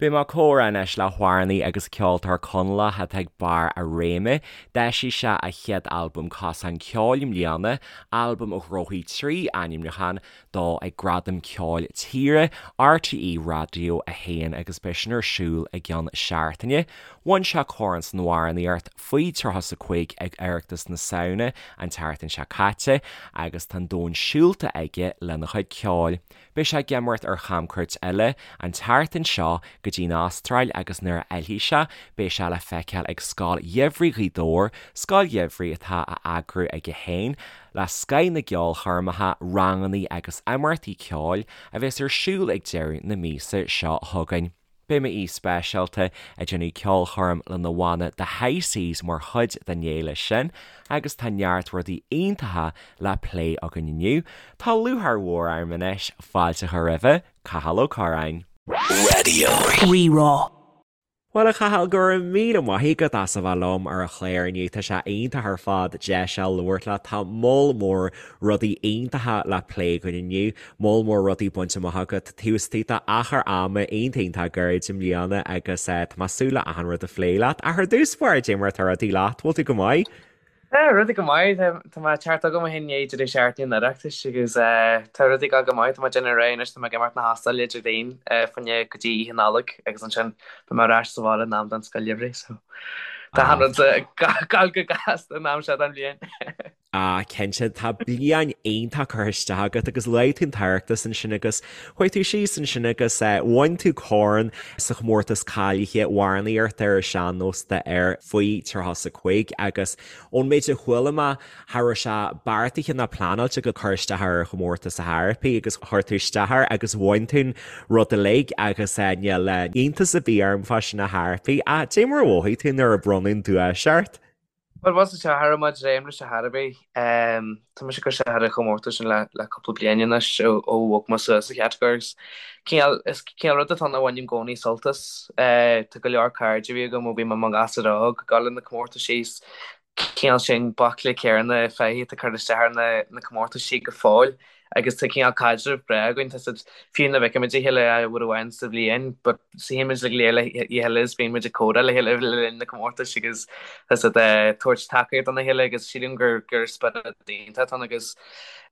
Beidh mé ag comhrá anois le hamhránaí agus ceoltóir Conallach atá ag barr a réime. D'eisigh sé a chéad albam Cosán Ceoil i mbliana, albam a ghnóthaigh 3 ainmniúchán dó ag Gradaim Ceoil Tíre RTÉ Raidió 1 agus beidh sin ar siúl i gceann seachtaine. Bhain sé corn san amhránaíocht faoi 35 ag Oireachtas na Samhna an tseachtain seo caite agus tá an domhan siúlta aige lena chuid ceoil. Beidh sé ag imeacht ar chamcuairt eile an tseachtain seo go dtí an Astráil agus nuair a fhillfidh sé beidh sé le feiceáil ag Scoil Gheimhridh Ghaoth Dobhair, scoil gheimhridh atá á eagrú aige féin le scoth na gceolchoirmeacha, rangannaí agus imeachtaí ceoil a bheas ar siúl ag deireadh na míosa seo chugainn. Beidh m'aoi speisialta ag déanamh ceolchoirm lena bhanna The High Seas mar chuid den fhéile sin agus tá neart rudaí iontacha le plé againn inniu. Tá lúcháir mhór orm anois fáilte a chur roimhe, Cathal Ó Curráin. Raidió Rí-Rá. Bhuel a Chathail, go raibh míle maith agat as a bheith liom ar an chlár inniu. Tá sé iontach ar fad deis a labhairt leat. Tá moll mór rudaí iontacha le plé againn inniu. Moll mór rudaí bainte amach agat taobh istigh d'achar ama iontach iontach gairid i mbliana agus tá mé ag súil le achan rud a phlé leat. Ach ar dtús báire, cad é mar atá rudaí leat, bhfuil tú go maith? Tá rudaí go maith, tá mé ag teacht agam ó shin i ndiaidh deireadh seachtaine an Oireachtais agus tá rudaí ag dul go maith, tá mé ag déanamh ar aghaidh anois, tá mé ag imeacht na hAstráile Déardaoin fá choinne go dtí Oíche Nollag agus ansin beidh mé ar ais sa bhaile in am don Scoil Gheimhridh so tá achan rud ag dul go gasta an am seo den bhliain. Ah, cinnte, tá bliain iontach curtha isteach agat agus luaigh tú an tOireachtas ansin agus chuaigh tú síos ansin agus bhain tú corn sa chomórtas cáilithe amhránaíochta ar an sean-nós d'fhir faoi 35 agus ón méid a chuala mé, cha raibh sé beartaithe ná pleanáilte agat cur isteach ar an chomórtas ar chor ar bith agus chuir tú isteach air agus bhain tú an rud uilig agus níl iontas ar bith orm fá sin ar chor ar bith. Ach cad é mar a mhothaigh tú nuair a bronnadh an duais ort? Bhuel, bhuel, cha raibh mé ag dréim leis ar chor ar bith. Tá mise ag cur isteach ar an chomórtas sin le cúpla bliain anois ó bhog mé suas sa chatagóir agus cineál, is cineál rud atá ann a bhainim i gcónaí sult as. Tá go leor cairde a bhí agam ó bhí mé i mo ghasúr óg ag dul ar na comórtaisí is cineál sin baicle céanna faiche atá ag cur isteach ar na comórtaisí go fóill. Agus tá cineál caidreamh breá againn, tá siad, fiú nuair a fheicimid a chéile uair amháin sa bhliain, but suíonn muid go léir le chéile is bíonn muid ag comhrá le chéile le linn na comórtais agus tá siad ag tabhairt tacaíocht dona chéile agus sílim gur gur spiorad iontach atá ann agus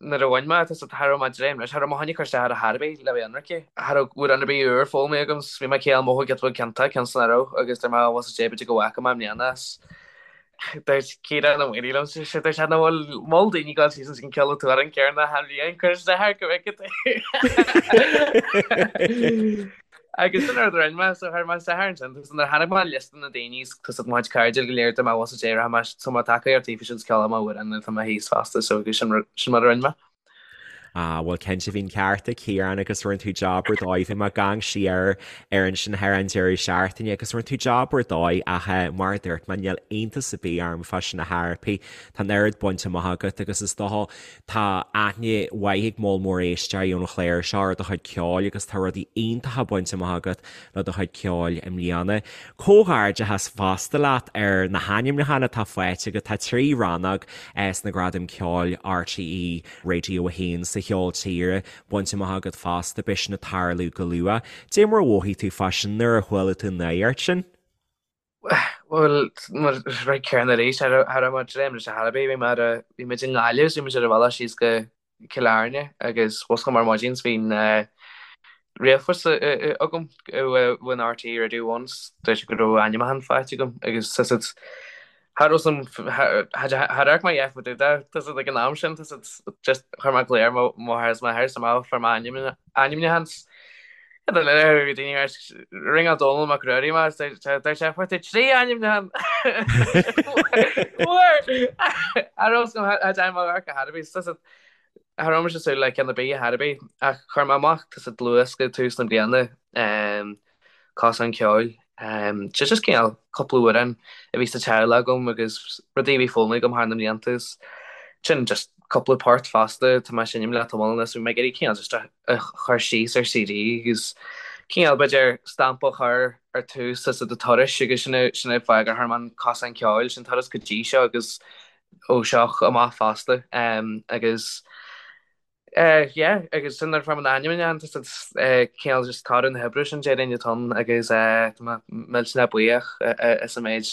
nuair a bhain mé, tá siad, cha raibh mé ag dréim leis, cha raibh mé chun cur isteach air ar chor ar bith le bheith ionraic. Cha raibh amhrán ar bith úr foghlamtha agam, bhí mé cineál mothú giota beag ciontach, cionn is nach raibh agus dúirt mé, bhuel sea, b'fhéidir go bhfaca mé i mbliana as. Dúirt Ciarán Ó Maonaigh liom sé dúirt sé nach bhfuil mol daoine ag dul síos an ceol an t-amhrán céanna achan bhliain cuir isteach air go bhfeicfidh tú. Agus sin rud a rinne mé so chuir mé isteach air ansin agus nuair a chonaic mé liosta na daoine is tá siad mo chuid cairde go léir dúirt mé bhuel sea rachaidh mé so má tacaíocht taobh sin ceol mo amhrán tá mé thíos fosta so agus sin sin mar a rinne mé. Ah, bhuel cinnte bhí an ceart ag Ciarán agus rinne tú jab ar dóigh, bhí mé ag amharc siar air ansin thar an deireadh seachtaine agus rinne tú jab ar dóigh ach eh, mar a dúirt mé níl iontas ar bith orm fá sin ar chor ar bith. Tá an oiread bainte amach agat agus is dócha tá aithne mhaith ag moll mór éisteoirí ón chlár seo ar do chuid ceoil agus tá rudaí iontacha bainte amach agat le do chuid ceoil i mbliana. Comhghairdeachas fosta leat ar na hainmniúcháin atá faighte agat. Tá 3 rannóg sna Gradaim Ceoil RTÉ Radio 1 sa cheol tíre bainte amach agat fosta, beidh sin ag tarlú go luath. Dé mar a mhothaigh tú fá sin nuair a chuala tú an nuacht sin? Bhuel, mar rud céanna arís, cha raibh mé ag dréim leis ar chor ar bith. Bhí mé ar a, bhí muid i nGaillimh is bhí muid ar an bhealach síos go Cill Airne agus mhuscail mé ar maidin 's bhí an ríomhphost agam ón RTÉ Radio One 's dúirt siad go raibh ainmniúchán faighte agam agus tá siad cha raibh san char amharc mé a dhath fá dtaobh de tá siad ag an am sin tá siad just chuir mé glao ar mo mháthair is m'athair 's mé fuair mé ainmniúchán 's Ringeáil Dónall Mac Ruairí mé dúirt sé fuair tú 3 ainmniúchán Fuair! Cha raibh fhios agam cha dtearn mé amharc ar chor ar bith tá siad cha raibh mise ag súil le ceann ar bith ar chor ar bith ach chuir mé amach tá siad dlúthdhiosca tús na bliana Cosán Ceoil. Sé just cineál cúpla amhrán a bhí sa teaghlach agam agus rudaí a bhí foghlamtha agam thar na mblianta is sin just cúpla port fosta tá mé ag seinm le tamall anuas bhí mé ag iarraidh cineál just a chur síos ar CD agus cineál b'fhéidir stampa a chur ar tús as do turais agus sin é sin é fáth gur chuir mé an Cosán Ceoil sin turas go dtí seo agus ó seo amach fosta agus. Yeah, agus sin nuair a fuair mé na hainmniúcháin, tá siad cineál just toradh na hoibre sin déarfainn atá ann agus tá mé millteanach buíoch as an méid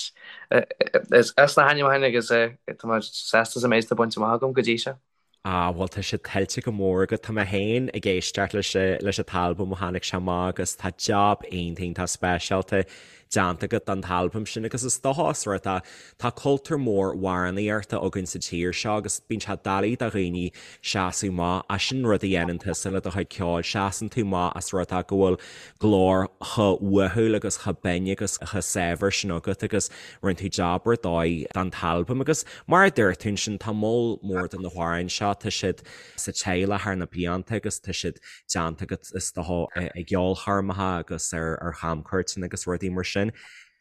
as na hainmniúcháin agus tá mé sásta as an méid atá bainte amach agam go dtí seo. Ah, bhuel tá sé tuillte go mór agat. Tá mé féin ag éisteacht leis leis an t-albam ó tháinig sé amach agus tá jab iontach iontach speisialta déanta agat don t-albam sin agus is dócha os rud é tá cultúr mór amhránaíochta againn sa tír seo agus bíonn sé doiligh do dhaoine seasamh amach ach sin rud a dhéanann tusa le do chuid ceoil, seasann tú amach as rud é go bhfuil glór chomh uathúil agus chomh binn agus chomh saibhir sin agat agus rinne tú jab ar dóigh don t-albam agus mar a dúirt tú ansin tá moll mór de na hamhráin seo, tá siad sa teaghlach thar na blianta agus tá siad déanta agat is dócha i gceolchoirmeacha agus ar chamcuairteanna agus rudaí mar sin.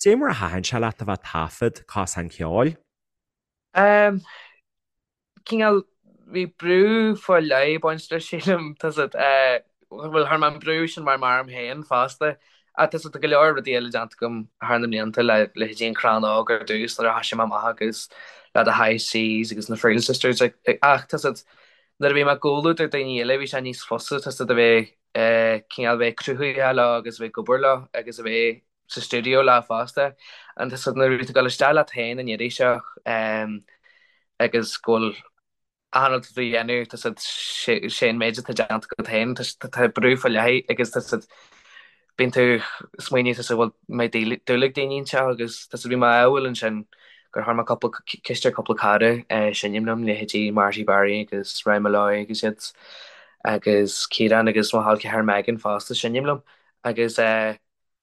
Dé mar a thaitin sé leat a bheith ag taifead Cosán Ceoil? Um, cineál, bhí brú faoi leith ag baint leis sílim, tá 's agat, bhuel chuir mé an brú sin mar orm féin fosta, ach tá 's agat, tá go leor rudaí eile déanta agam thar na mblianta le leithéidí An Crann Óg ar dtús nuair a thoisigh mé amach agus le The High Seas agus na Friel Sisters ach tá 's agat, nuair a bhí mé i gcomhluadar daoine eile bhí sé níos fusa tá 's agat a bheith cineál bheith cruthaitheach leo agus a bheith ag obair leo agus a bheith sa stiúideo leo fosta. And tá 's agat nuair a bhí tú ag dul isteach leat féin an iarraidh seo agus go bhfuil achan rud atá tú a dhéanamh tá 's agat sé an méid atá déanta agat féin tá brú faoi leith agus tá 's agat bíonn tú ag smaoineamh tá 's agat bhfuil mbeidh dúil ag daoine anseo agus tá 's agat bhí mé ádhúil ansin gur chuir mé cúpla ceist ar cúpla cara seinm liom leithéidí Marty Barry agus Ryan Molloy agus iad agus Ciarán agus mo chol ceathar Megan fosta seinm liom agus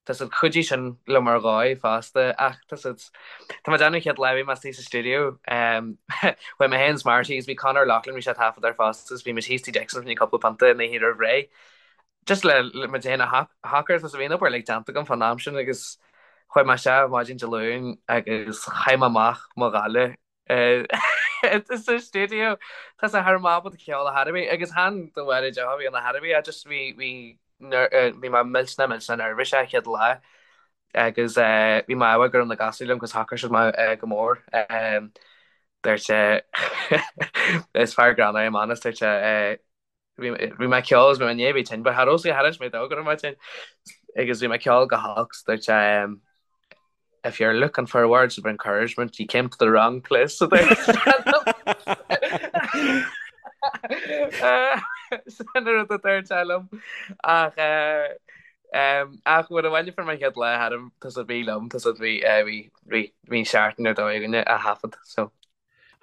Tá 's agat chuidigh sin liom ar dhóigh fosta ach tá 's agat tá mé ag déanamh an chéad lá a bhí mé istigh sa stiúideo chuaigh mé féin is Marty agus bhí Conor Loughlin bhí sé ag taifead air fosta agus bhí muid thíos tigh Dixon fá choinne cúpla pionta an oíche roimh ré just le le muid féin a shocrú tá 's agat bhí an obair uilig déanta agam fán am sin agus chuaigh mé isteach maidin Dé Luain agus chaith mé amach mo ghoile sa stiúideo tá 's agat cha raibh mé ábalta ceol ar chor ar bith agus chan de bharr an deoch a bhí ann ar chor ar bith just bhí bhí bhí mé millteanach millteanach neirbhíseach an chéad lá agus bhí mé ádhúil go raibh na gasúir liom agus shocair siad mé go mór. Dúirt sé is fear greannmhar é Manus dúirt sé bhí mé ag ceol agus bhí mé i ndiaidh a bheith tinn but cha raibh sé char inis mé dó go raibh mé tinn agus bhí mé ag ceol go holc so dúirt sé If you're looking for words of encouragement, you came to the wrong place a dúirt sé liom. Sin an rud a dúirt sé liom. Ach ach nuair a bhain fuair mé an chéad lá tharam tá 's agat bhí liom tá 's agat bhí bhí bhí bhí an seachtain ar dóigh againne a thaifead so.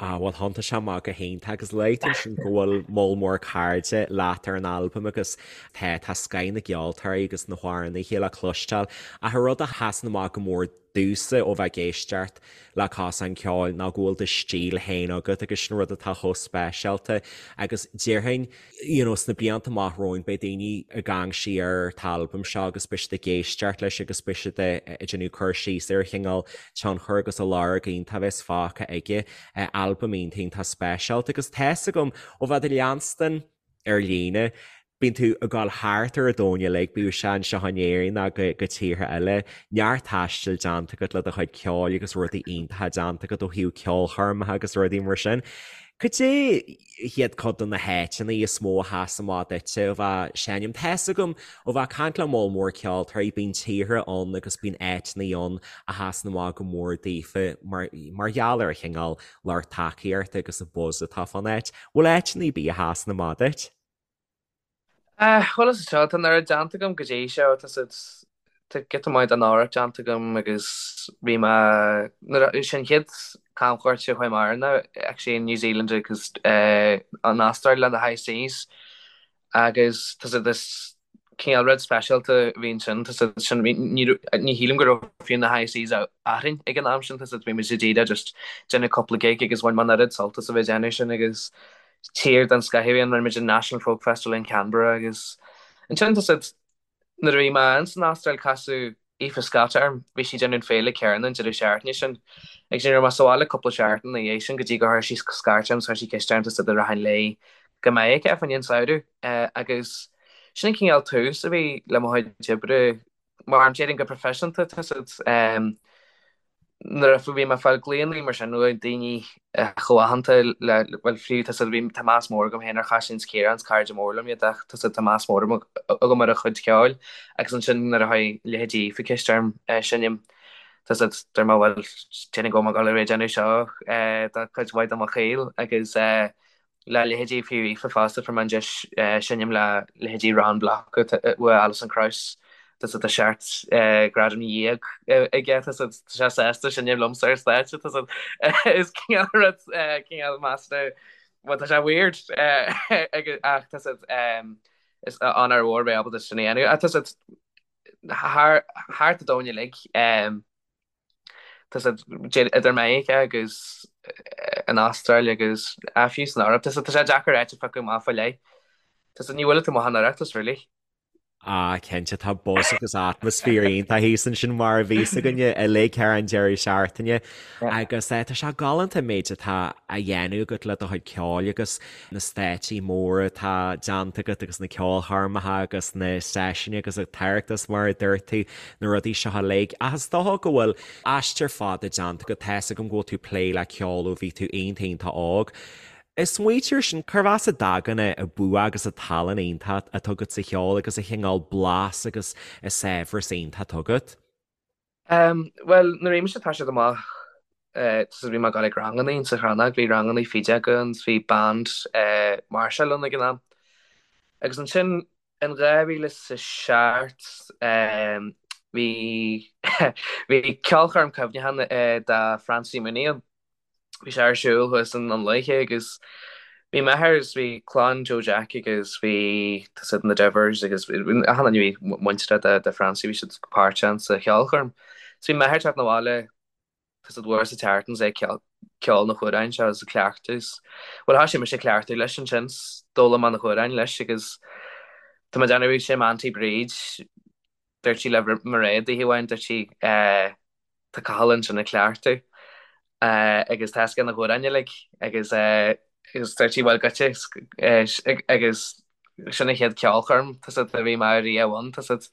Ah, bhuel, thiontaigh sé amach go hiontach agus luaigh tú ansin go bhfuil moll mór cairde leat ar an albam agus tá, tá scoth na gceoltóirí agus na hamhránaithe le cloisteáil. Ach an rud a sheasann amach go mór domhsa ó bheith ag éisteacht le Cosán Ceoil ná go bhfuil do stíl féin agat agus sin rud atá chomh speisialta agus déarfainn, you know, sna blianta amach romhainn beidh daoine ag amharc siar ar an t-albam seo agus beidh siad ag éisteacht leis agus beidh siad ag déanamh cur síos ar an chineál tionchar agus an lorg iontach a bheas fágtha aige. Albam iontach iontach speisialta agus tá's agam ó bheith ag leanstan ar líne, bíonn tú ag dul thart ar an domhan uilig, bíodh sé anseo in Éirinn ná go go tíortha eile, neart taistil déanta agat le do chuid ceoil agus rudaí iontacha déanta agat ó thaobh ceolchoirmeacha agus rudaí mar sin. Cad é hiad cuid de na háiteanna is mó a sheas amach duitse ó bheith ag seinm? Tá's agam ó bheith ag caint le moll mór ceoltóirí, bíonn tíortha ann agus bíonn áiteanna ann a sheasann amach go mór daofa mar mar gheall ar an chineál lucht tacaíochta agus an buzz atá fán áit. Bhfuil áiteanna ar bith a sheasann amach duit? Bhuel is seo, tá an oiread déanta agam go dtí seo, tá siad, tá giota maith den Eoraip déanta agam agus bhí mé, nuair a, sin an chéad camchuairt a chuaigh mé air ná actually in New Zealand agus an Astráil le The High Seas agus tá siad is cineál rud speisialta a bhí ansin, tá siad sin, bhí, ní raibh, ní shílim go raibh fiú na High Seas againn ag an am sin, tá siad, bhí muid díreach just déanamh cúpla gig agus bhain mé an oiread sult as a bheith ag déanamh sin agus tír den scoth a bhí ann, rinne muid an National Folk Festival in Canberra agus ansin tá siad, nuair a bhí mé ins an Astráil casadh Aoife Scott orm, bhí sí ag déanamh an féile céanna an deireadh seachtaine sin agus ní raibh mé sa bhaile cúpla seachtain ina dhiaidh sin go dtí gur chuir sí scairt orm 's chuir sí ceist orm tá siad an rachainn léi go Meiriceá fá choinne an samhradh agus sin an cineál tús a bhí le mo chuid oibre mar déarfainn go proifisiúnta tá siad. Nuair a bhí mé ag fáil glaonna mar sin ó daoine chomh aitheanta le, bhuel fiú tá bhí tá meas mór agam féin ar Chaitlín 's Ciarán, is cairde mór liom iad ach tá tá meas mór agam ar a chuid ceoil agus ansin nuair a chuir leithéidí Aoife ceist orm seinm tá siad deir mé bhuel déarfainn go bhfuil mé ag dul a bheith ag déanamh seo do chuid mhaith de mo shaol agus le leithéidí fiú Aoife fosta, fuair mé an deis seinm le leithéidí Ron Block uaidh Alison Krauss, tá siad tá 17 gradam aige, tá siad tá sé sásta seinm liomsa ar stáitse, tá siad is cineál rud cineál measartha bhuel tá sé weird ach tá siad is onóir mhór bheith ábalta sin a dhéanamh ach tá siad thar thart an domhan uilig. Tá siad idir Meiriceá agus an Astráil agus fiú san Eoraip. Tá sé deacair áit a phiocadh amach fá leith. Tá siad ní bhfuil tú maith an Oireachtas really. Ah, cinnte, tá buzz agus atmaisféar iontach thíos ansin mar a bhí fhios againne uilig thar an deireadh seachtaine. Agus tá sé galánta an méid atá á dhéanamh agat le do chuid ceoil agus na stáitsí móra atá déanta agat agus na ceolchoirmeacha agus na seisiúin agus an tOireachtas mar a dúirt tú, na rudaí seo uilig. Ach is dócha go bhfuil aistear fada déanta agat, tá fhios agam go bhfuil tú ag plé le ceol ó bhí tú iontach iontach óg. Ag smaoitiú air sin, cérbh as a dtagann an bua agus an tallann iontach atá agat sa cheol agus an chineál blas agus an saibhreas iontach atá agat? Bhuel, nuair a bhí mise ag toiseacht amach, bhí mé ag dul ag rangannaí insa Chrannóg, bhí rangannaí fidil againn, bhí band máirseáil ann ag an am. Agus ansin in 2007 bhí bhí ceolchoirm cuimhneacháin do Francie Mooney ann. Bhí sé ar siúl thuas i nDún Lúiche agus bhí m'athair agus bhí clann Joe Jack agus bhí tá siad na Devers agus achan duine a bhí muinteartha de Francie bhí siad páirteach sa cheolchoirm. So bhí m'athair ag teacht 'na bhaile tá siad uair sa tseachtain is é ag ceol na hamhráin seo agus ag cleachtadh is bhuel thoisigh mise ag cleachtadh leis ansin 's d'fhoghlaim mé na hamhráin leis agus tá mé ag déanamh sé m'auntie Bríd dúirt sí le Mairéad oíche amháin dúirt sí eh Tá Cathal ansin ag cleachtadh agus tá fhios aige na hamhráin uilig agus agus dúirt sí bhuel goitse agus sin an chéad ceolchoirm tá siad a bhí mé riamh ann tá siad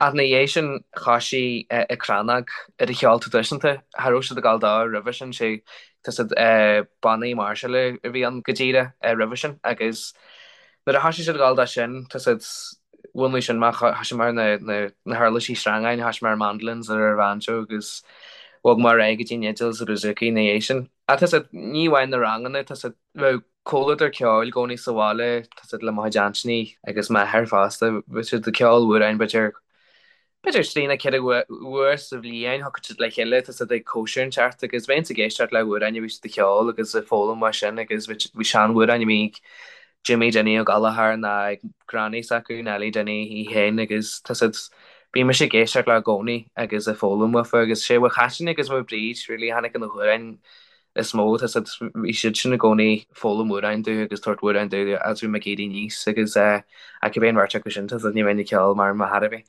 ach ina dhiaidh sin thoisigh an Chrannóg ar an cheol traidisiúnta cha raibh siad ag dul dó roimhe sin sé tá siad bannaí máirseála a bhí ann go díreach roimhe sin agus nuair a thoisigh siad ag dul dó sin tá siad Mhúnlaigh sin mé, thoisigh mé ar na huirlisí sreangáin, thoisigh mé ar mandolins ar an bhanjo agus bhog mé ar aghaidh go dtí an fhidil is an bouzouki ina dhiaidh sin. Ach tá siad, ní amháin na ranganna, tá siad, bheadh comhluadar ceoil i gcónaí sa bhaile, tá siad le mo chuid aintíní agus m'athair fosta, bheadh siad ag ceol amhráin b'fhéidir, b'fhéidir trí nó 4 uair sa bhliain, thiocfadh siad le chéile, tá siad ag cóisir inteacht agus bheinnse ag éisteacht le hamhráin a bhí siad ag ceol agus ag foghlaim uaidh sin agus bhí seanamhráin a bhí ag Jimmy Dinny Ó Gallchóir nó ag granny s'acu, Nellie Dinny í féin agus tá siad, bhí mise ag éisteacht leo i gcónaí agus ag foghlaim uafa agus sé uaidh Chaitlín agus uaidh Bríd really a tháinig na hamhráin is mó, tá siad, bhí siad sin i gcónaí ag foghlaim amhráin domh agus tabhairt amhráin domh as bhí mé ag éirí aníos agus eh ach cibé an bheirt acu sin tá siad ní bheinn ag ceol mara mbeadh thar a bheith.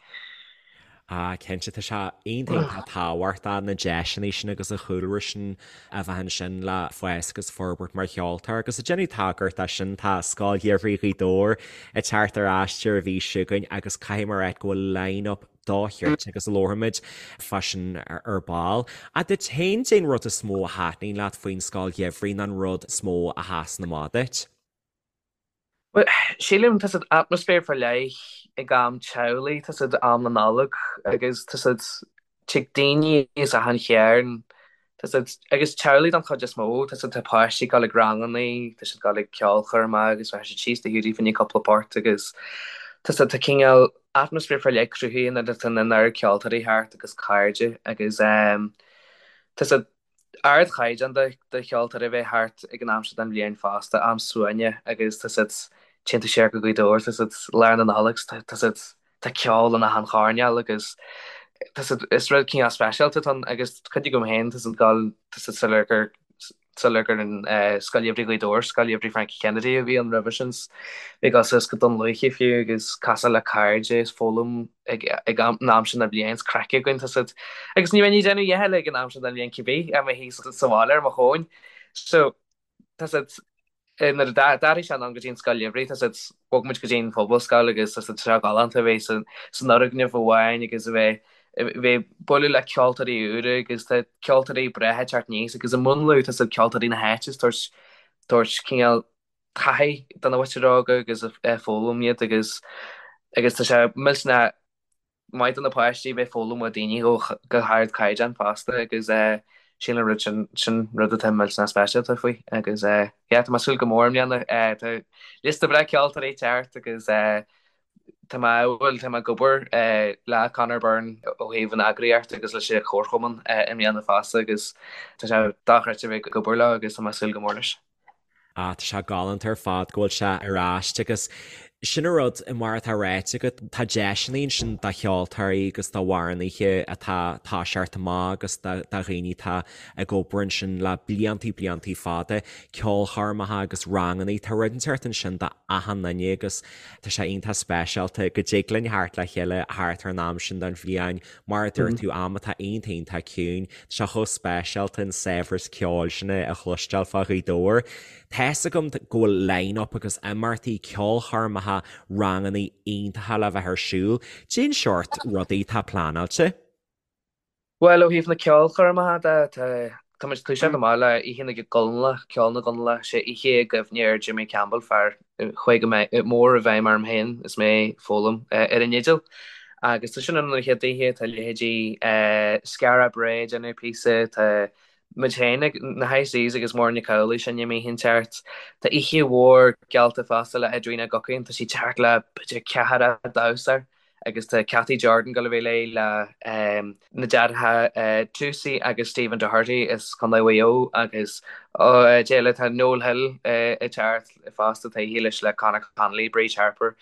Ah cinnte tá sé iontach iontach tábhachtach na deiseanna sin agus an chúlra sin a bheith ansin le fás agus forbairt mar cheoltóir agus ag déanamh tagairt dó sin tá Scoil Gheimhridh Ghaoth Dobhair ag teacht ar ais ar an mhí seo chugainn agus caithfidh mé a rá go bhfuil line-up dochreidte agus labharfaimid fá sin ar ball. Ach duit féin, cad é an rud is mó a thaitníonn leat faoin Scoil Gheimhridh nó an rud is mó a sheasann amach duit? Bhuel, sílim tá siad atmaisféar faoi leith ag am teaghlaigh, tá siad am na Nollag agus tá siad tig daoine as achan chearn, tá siad agus teaghlaigh don chuid is mó, tá siad tá páistí ag dul ag rangannaí, tá siad ag dul ag ceolchoirmeacha agus bheadh siad síos do Hiúdaí fá choinne cúpla port agus tá siad tá cineál atmaisféar faoi leith cruthaithe nuair atá an oiread ceoltóirí thart agus cairde agus tá siad ardchaighdeán de cheoltóirí a bheith thart ag an am seo den bhliain fosta, am suaimhneach agus tá siad téann tú siar go Gaoth Dobhair, tá siad lár na Nollag, tá siad tá ceol in achan choirnéal agus tá siad is rud cineál speisialta atá ann agus cuid agam féin tá siad dul tá siad sular gur sular gur an Scoil Gheimhridh Ghaoth Dobhair, Scoil Gheimhridh Frankie Kennedy a bhí ann roimhe sin bhí ag dul suas go Dún Lúiche fiú agus casadh le cairde is foghlaim ag ag an am sin den bhliain is craic againn tá siad agus ní bheinn ag déanamh a dhath eile ag an am sin den bhliain cibé i mo shuí sa bhaile ar mo thóin so tá siad nuair a d'athraigh sé anonn go dtí an scoil gheimhridh tá siad bhog muid go dtí an phobalscoil agus tá siad seo galánta a bheith san san fhoirgneamh amháin agus a bheith. bheith ag bualadh le ceoltóirí úra agus tá ceoltóirí breátha ag teacht aníos agus ag múnlú tá siad ceoltóirí na háite ag tabhairt tabhairt cineál taithí do na mhuintir óga agus ag foghlaim iad agus agus tá sé millteanach maith do na páistí bheith ag foghlaim ó daoine go hardchaighdeán fosta agus sin an rud sin sin rud atá millteanach speisialta faoi agus yeah tá mé ag súil go mór i mbliana tá liosta breá ceoltóirí ag teacht agus tá mé bhuel tá mé ag obair le Conor Byrne ó thaobh an eagraíocht agus leis an chomharchumann i mbliana fosta agus tá sé dochreidte bheith ag obair leo agus tá mé ag súil go mór leis. Ah, tá sé galánta ar fad go bhfuil sé ar ais agus sin an rud, mar atá ráite agat, tá deiseanna ansin do cheoltóirí agus do amhránaithe atá ag toiseacht amach agus do dhaoine atá ag obair ansin le bliantaí bliantaí fada, ceolchoirmeacha agus rangannaí, tá rud inteacht ansin do achan duine agus tá sé iontach speisialta go dtig linn theacht le chéile thart ar an am sin den bhliain, mar a dúirt tú, am atá iontach iontach ciúin. Tá sé chomh speisialta an saibhreas ceoil sin a chloisteáil fá Ghaoth Dobhair. Tá's agam go bhfuil line-up agus imeachtaí, ceolchoirmeacha, rangannaí iontacha le bheith ar siúl. Cén seort rudaí atá pleanáilte? Bhuel, ó thaobh na ceolchoirmeacha de, tá tá muid ag toiseacht amach le Oíche na gConallach, Ceol na gConallach, sé oíche i gcuimhne ar Jimmy Campbell, fear a chuaigh go mór i bhfeidhm orm féin is mé ag foghlaim ar an fhidil. Agus tá sin ann an chéad oíche, tá leithéidí Skara Brae ag déanamh píosa, tá muid féin, na High Seas agus Muireann Nic Amhlaoibh ag seinm oíche inteacht. Tá oíche mhór geallta fosta le Edwina Guckian, tá sí ag teacht le b'fhéidir ceathracha damhsóir. agus tá Cathy Jordan ag dul a bheith léi le na deartháireacha Toosey agus Stephen Doherty as Contae Mhaigh Eo agus cé eile tá Noel Hill ag teacht fosta tá oíche leis le Conor Connolly, Bríd Harper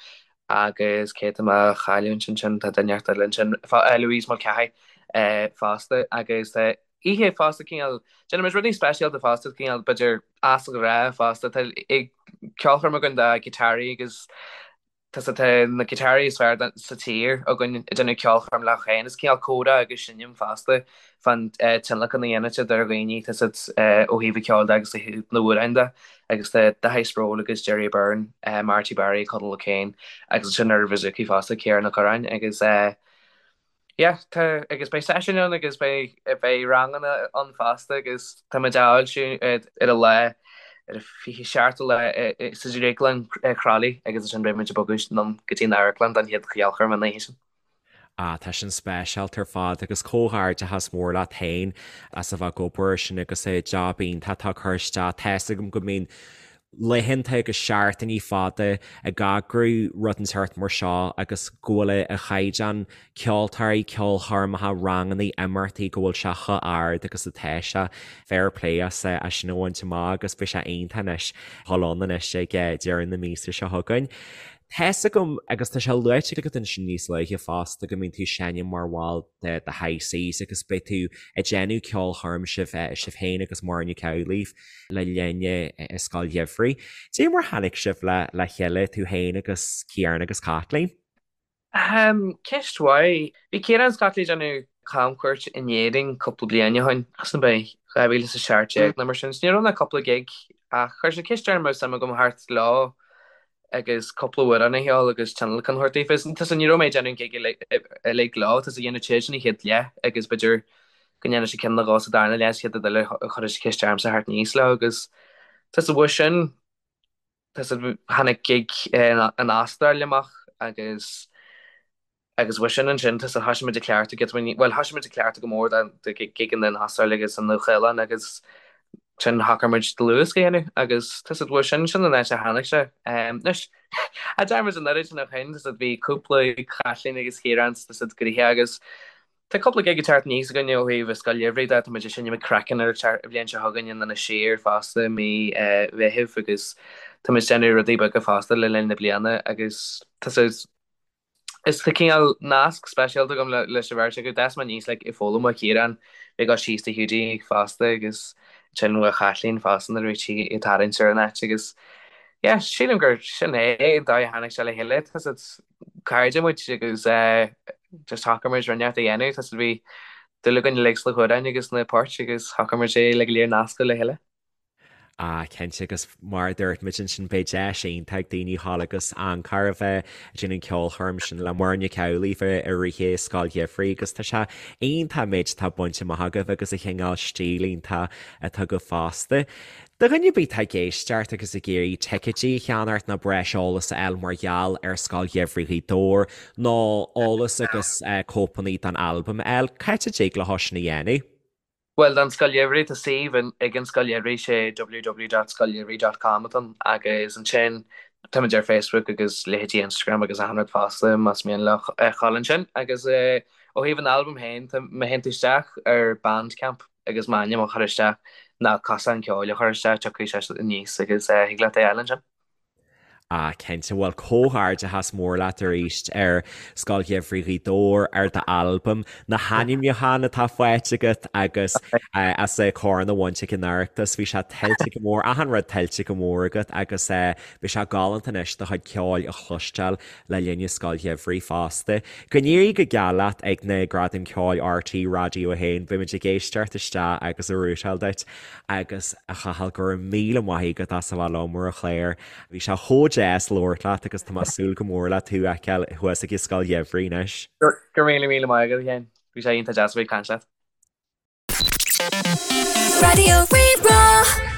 agus cé tá mé a chailliúint ansin tá duine inteacht eile ansin Louise Mulcahy fosta agus tá oíche fosta cineál déanaimid rudaí speisialta fosta cineál b'fhéidir as an ghnáth fosta tá ceolchoirm againn do ghiotáraí agus Tá tá na giotáraí is fearr sa tír againn ag déanamh ceolchoirm leo féin. Is cineál comhrá agus seinm fosta fán tionlacan a dhéanann siad ar dhaoine, tá siad ó thaobh an cheoil de agus ó thaobh na n-amhrán de. Agus tá Daithí Sproule agus Gerry Byrne, Marty Barry, Conall O'Kane agus ansin ar bouzouki fosta, Ciarán Ó Curráin agus Yeah, tá, agus beidh seisiúin ann agus beidh, beidh ranganna ann fosta agus tá muid á fhoilsiú ar an lá, ar an 27ú lá sa Drioglann Crolly agus ansin beidh muid ag bogadh anonn go dtí an amharclann don chéad cheolchoirm an oíche sin. Ah, tá sin speisialta ar fad agus comhghairdeachas mór leat féin as a bheith ag obair air sin agus job iontach atá curtha isteach. Tá's agam go mbíonn laethanta agus seachtainí fada ag eagrú rud inteacht mar seo agus go bhfuil an caighdeán ceoltóirí, ceolchoirmeacha, rangannaí, imeachtaí, go bhfuil sé chomh ard agus atá sé. Fair play as sin a bhaint amach agus beidh sé iontach anois dhul ann anois ag deireadh na míosa seo chugainn. Tá's agam, agus tá sé luaite agat ansin níos luaithe fosta, go mbíonn tú ag seinm mar bhall de The High Seas agus beidh tú ag déanamh ceolchoirm sibh sibh féin agus Muireann Nic Amhlaoibh le linn an Scoil Gheimhridh. Cad é mar tháinig sibh le le chéile, tú féin agus Ciarán agus Caitlín? Ahem, ceist mhaith. Bhí Ciarán is Caitlín ag déanamh camchuairt in Éirinn cúpla bliain ó shin, sin ab é 2017 nó mar sin, so ní raibh ach cúpla gig ach chuir siad ceist orm an raibh suim agam theacht leo agus cúpla amhrán a cheol agus tionlacan a thabhairt daofa. Tá ní raibh mé ag déanamh an gig uilig leo, tá dhéanamh siad an chéad leath agus b'fhéidir go ndéanfaidh siad ceann nó dhó sa darna leath, sa chéad rud eile chuir siad ceist ormsa theacht aníos leo agus tá sa bhua sin tá tháinig gig an Astráil amach agus Agus uaidh sin ansin, tá thosaigh muid ag cleachtadh giota beag, bhuel, thosaigh muid ag cleachtadh go mór do gigeanna in Astráil agus sa Nua-Shéalainn agus sin shocraigh muid dlúthdhiosca a dhéanamh agus tá siad uaidh sin, sin an áit a tháinig sé. Anois, a deir muid an oiread sin ó shin, tá siad bhí cúpla Chaitlín agus Chiarán tá siad gnoitheach agus tá cúpla gig ag teacht aníos againn ó thaobh an Scoil Gheimhridh de, tá muid ag seinm ag Craiceann ar an bhliain seo chugainn in Inis Oírr fosta i mí Mheithimh agus tá muid ag déanamh rudaí beaga fosta le linn na bliana agus tá siad Is tá cineál nasc speisialta agam leis an bheirt acu. D'fhás mé aníos like ag foghlaim ó Chiarán, ag dul síos do Hiúdaí fosta agus ansin ó Chaitlín fosta nuair a bhí sí ag tarraingt ar an áit agus yeah sílim gur sin é an dóigh a tháinig sé le chéile. Tá siad cairde muid agus eh just shocraigh muid rud inteacht a dhéanamh. Tá siad bhí dúil againn uilig sna hamhráin agus na poirt agus shocraigh muid é le go léir nascadh le chéile. Ah, cinnte, agus mar a dúirt muid ansin, beidh deis iontach ag daoine a ghabháil agus encore a bheith ag déanamh an ceolchoirm sin le Muireann Nic Amhlaoibh i rith an Scoil Gheimhridh agus tá sé iontach an méid atá bainte amach agaibh agus an chineál stíl iontach atá agaibh fosta. Do dhuine ar bith atá ag éisteacht agus ag iarraidh ticéidí a cheannacht nó breis eolas a fháil mar gheall ar Scoil Gheimhridh Ghaoth Dobhair nó eolas agus cóipeanna den albam a fháil, cá háit a dtig leo sin a dhéanamh? Bhuel, don Scoil Gheimhridh, tá suíomh ag an Scoil Gheimhridh, sé www.scoilgheimhridh dot com atá ann, agus ansin táimid ar Facebook agus leithéidí Instagram agus achan rud fosta más mian leo a ghabháil ansin. Agus ó thaobh an albaim féin, tá, má théann tú isteach ar Bandcamp agus m'ainm a chur isteach, nó Cosán Ceoil a chur isteach, tiocfaidh sé aníos agus thig leat é a fháil ansin. Ah, cinnte. Bhuel, comhghairdeachas mór leat arís ar Scoil Gheimhridh Ghaoth Dobhair, ar d'albam, na hainmniúcháin atá faighte agat agus as an chorn a bhaint ag an Oireachtas. Bhí sé tuillte go mór, achan rud tuillte go mór agat agus beidh sé galánta anois do chuid ceoil a chloisteáil le linn na Scoil Gheimhridh fosta. Go n-éirí go geal leat ag na Gradaim Ceoil RTÉ Raidió 1. Beimid ag éisteacht isteach agus ag rútáil duit. Agus, a Chathail, go raibh míle maith agat as a bheith liom ar an chlár. Bhí sé chomh deas labhairt leat agus tá mé ag súil go mór le tú a fheiceáil thuas ag an Scoil Gheimhridh anois. Go raibh míle míle maith agat, a Sheáin. Bhí sé iontach deas a bheith ag caint leat. Raidió Rí-Rá.